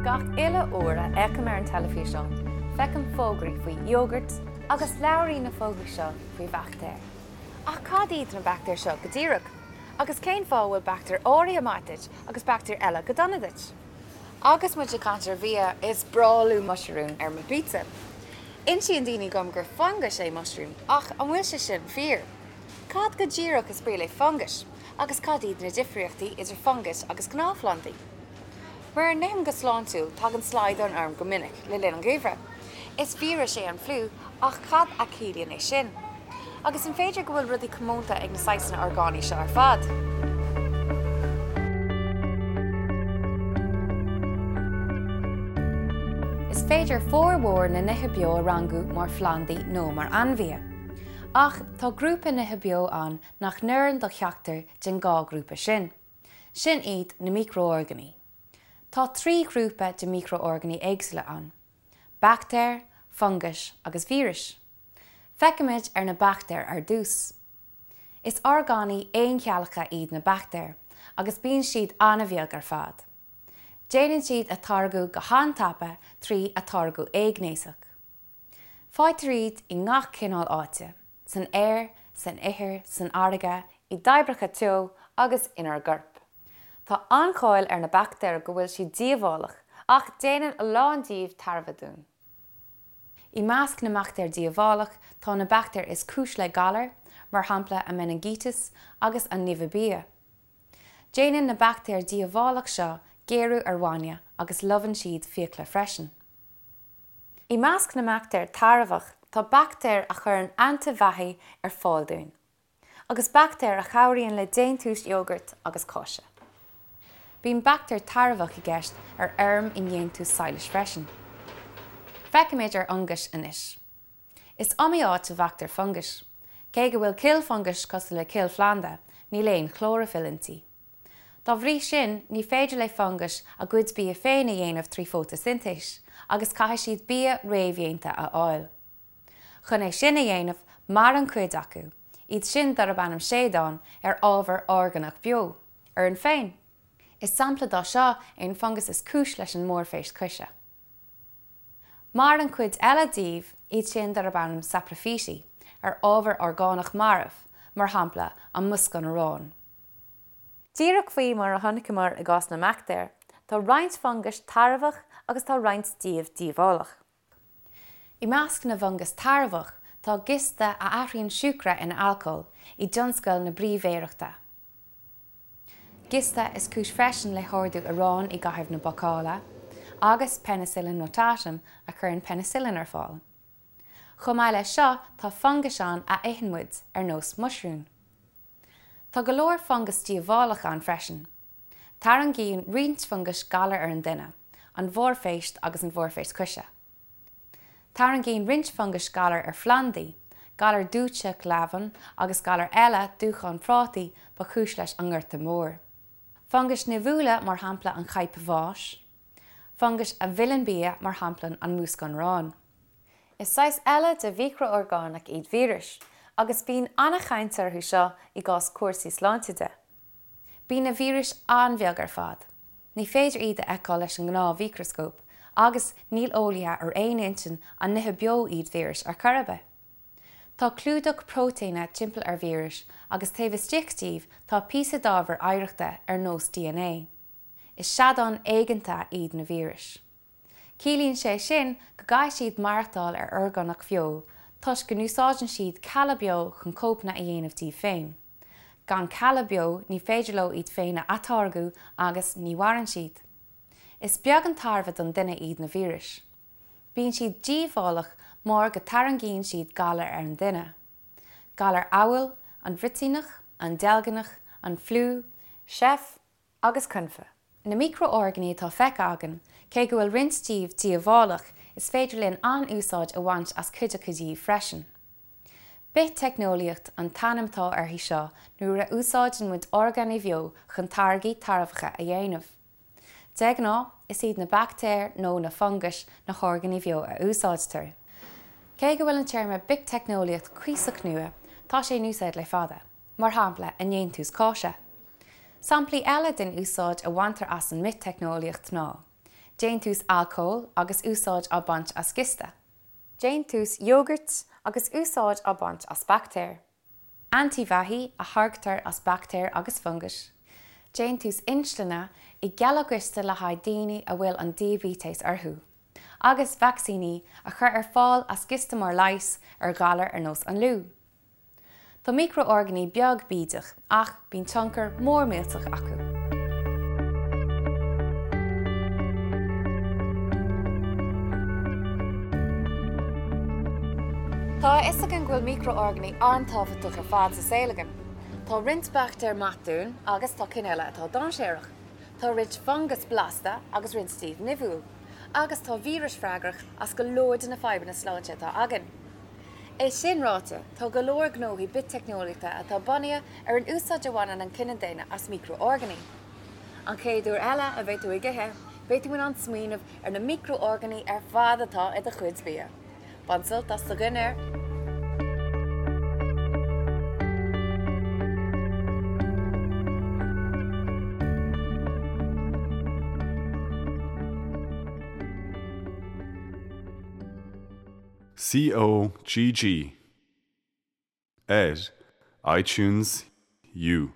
Gach uile uair a fhéachaim ar an teilifíseán, feicim fógraí faoi iógart agus labhraíonn na fógraí seo faoi bhaictéir. Ach cad iad na baictéir seo go díreach? Agus cén fáth a bhfuil baictéir áirithe maith duit agus baictéir eile go dona duit? Agus muid ag caint ar bhia, is breá liom muisiriún ar mo phizza. Insíonn daoine dom gur fungas é muisiriún, ach an bhfuil sé sin fíor? Cad go díreach is brí le fungais, agus cad iad na difríochtaí idir fungais agus gnáthphlandaí? Mura n-ithim go sláintiúil, tagann slaghdán orm go minic le linn an gheimhridh. Is víreas é an fliú, ach cad a chiallaíonn é sin? Agus an féidir go bhfuil rudaí comónta ag na saghsanna orgánaigh seo ar fad? Is féidir formhór na nithe beo a rangú mar phlandaí nó mar ainmhithe. Ach tá grúpa nithe beo ann nach n-oireann do cheachtar den dhá ghrúpa sin. Sin iad na miocrorgánaigh. Tá 3 ghrúpa de mhiocrorgánaigh éagsúla ann, baictéir, fungais agus víris. Féachfaimid ar na baictéir ar dtús. Is orgánaigh aoncheallacha iad na baictéir agus bíonn siad an-bheag ar fad. Déanann siad atáirgeadh go han-tapa trí atáirgeadh éighnéasach. Faightear iad i ngach cineál áite, san aer, san ithir, san fharraige, i dtoibreacha teo agus inár gcorp. Tá an-cháil ar na baictéir go bhfuil siad díobhálach, ach déanann a lán díobh tairbhe dúinn. I measc na mbaictéar díobhálach tá na baictéir is cúis le galair, mar shampla an meiningíteas agus an nimhiú bia. Déanann na baictéir dhíobhálach seo géarú ar bhainne agus lobhann siad fiacla freisin. I measc na mbaictéar tairbheach tá baictéir a chuireann antaibheathaigh ar fáil dúinn, agus baictéir a chabhraíonn le déantús iógairt agus cáise. Bíonn baictéar tairbheach i gceist ar fheirm i ndéantús sadhlais freisin. Féachfaimid ar fhungais anois. Is iomaí áit a bhfeictear fungais. Cé go bhfuil cill fungais cosúil le cill phlanda, níl aon chlóraifill inti. Dá bhrí sin, ní féidir le fungais a gcuid bia féin a dhéanamh trí fótaisintéis, agus caithfidh siad bia réamhdhéanta a fháil. Chun é sin a dhéanamh, maireann cuid acu, iad sin darb ainm seadáin, ar ábhar orgánach beo, orainn féin. Is sampla dá seo é an fungas is cúis leis an mborrphéist coise. Maireann cuid eile díobh, iad sin darb ainm sapraifítí, ar ábhar orgánach marbh, mar shampla, an múscán aráin. Díreach faoi mar a chonaiceamar i gcás na mbaictéar, tá roinnt fungais tairbheach agus tá roinnt díobh díobhálach. I measc na bhfungas tairbheach tá giosta a athraíonn siúcra ina alcól i dtionscal na bríbhéireachta. Giosta is cúis freisin le hardú aráin i gcaitheamh na bácála, agus Penicillium notatum a chuireann peinicillin ar fáil. Chomh maith leis seo tá fungais ann a itheann muid, ar nós muisiriún. Tá go leor fungas díobhálach ann freisin. Tarraingíonn roinnt fungais galar ar an duine, an bhorrphéist agus an bhorrphéist coise. Tarraingíonn roinnt fungais galar ar phlandaí, galar dúitseach leamhan agus galar eile, dúchan prátaí, ba chúis leis an nGorta Mór. Fungais nimhiúla mar shampla an chaidhp bháis. Fungais a mhilleann bia mar shampla an múscán aráin. Is saghas eile de mhiocro-orgánach iad víris, agus bíonn an-chaint orthu seo i gcás cúrsaí sláinte de. Bíonn na víris an-bheag ar fad. Ní féidir iad a fheiceáil leis an ngnáth-mhicreascóp, agus níl eolaithe ar aon intinn an nithe beo iad víris ar chor ar bith. Tá clúdach próitéine timpeall ar víris agus taobh istigh díobh tá píosa d'ábhar oidhreachta ar nós dna. Is seadáin éigeanta iad na víris. Ciallaíonn sé sin go gcaithfidh siad maireachtáil ar orgánach bheo toisc go n-úsáideann siad cealla beo chun cóipeanna a dhéanamh díobh féin. Gan cealla beo ní féidir leo iad féin a atáirgeadh agus ní mhaireann siad. Is beag an tairbhe don duine iad na víris. Bíonn siad díobhálach mar go tarraingíonn siad galair ar an duine. Galair amhail an bhruitíneach, an deilgneach, an fliú, seif, agus confadh. Na miocro-orgánaigh atá feicthe againn, cé go bhfuil roinnt díobh díobhálach, is féidir linn an-úsáid a bhaint as cuid acu díobh freisin. Biteicneolaíocht an t-ainm atá uirthi seo nuair a úsáideann muid orgánaigh bheo chun táirgí tairbheacha a dhéanamh. De ghnáth, is iad na baictéir nó na fungais na horgánaigh bheo a úsáidtear. Cé go bhfuil an téarma biteicneolaíocht cuíosach nua, tá sé in úsáid le fada. mar shampla i ndéantús cáise. Samplaí eile den úsáid a bhaintear as an mbiteicneolaíocht ná. Déantús alcóil agus úsáid á baint as giosta. Déantús iógairt agus úsáid á baint as baictéir. Antaibheathaigh a tháirgtear as baictéir agus fungais. Déantús insline i gcealla giosta le haghaidh daoine a bhfuil an diaibéiteas orthu. Agus vacsaíní a chur ar fáil as giosta mar leigheas ar ghalair ar nós an fhliú. Tá miocrorgánaigh beag bídeach ach bíonn tionchar mór millteach acu. Tá a fhios againn go bhfuil miocrorgánaigh an-tábhachtach ar fad sa saol againn. Tá roinnt baictéar maith dúinn agus tá cinn eile atá dainséarach. Tá roinnt fungas blasta agus roinnt díobh nimhiúil. Agus tá víris freagrach as go leor de na fadhbanna sláinte atá againn. É sin ráite, tá go leor gnóthaí biteicneolaíochta atá bunaithe ar an úsáid a bhaineann an cine daonna as miocrorgánaigh. An chéad uair eile a bheidh tú ag ithe, beidh tú in ann smaoineamh ar na miocrorgánaigh ar fad atá i do chuid bia. Bain sult as do dhinnéar! COGG ar iTunes U.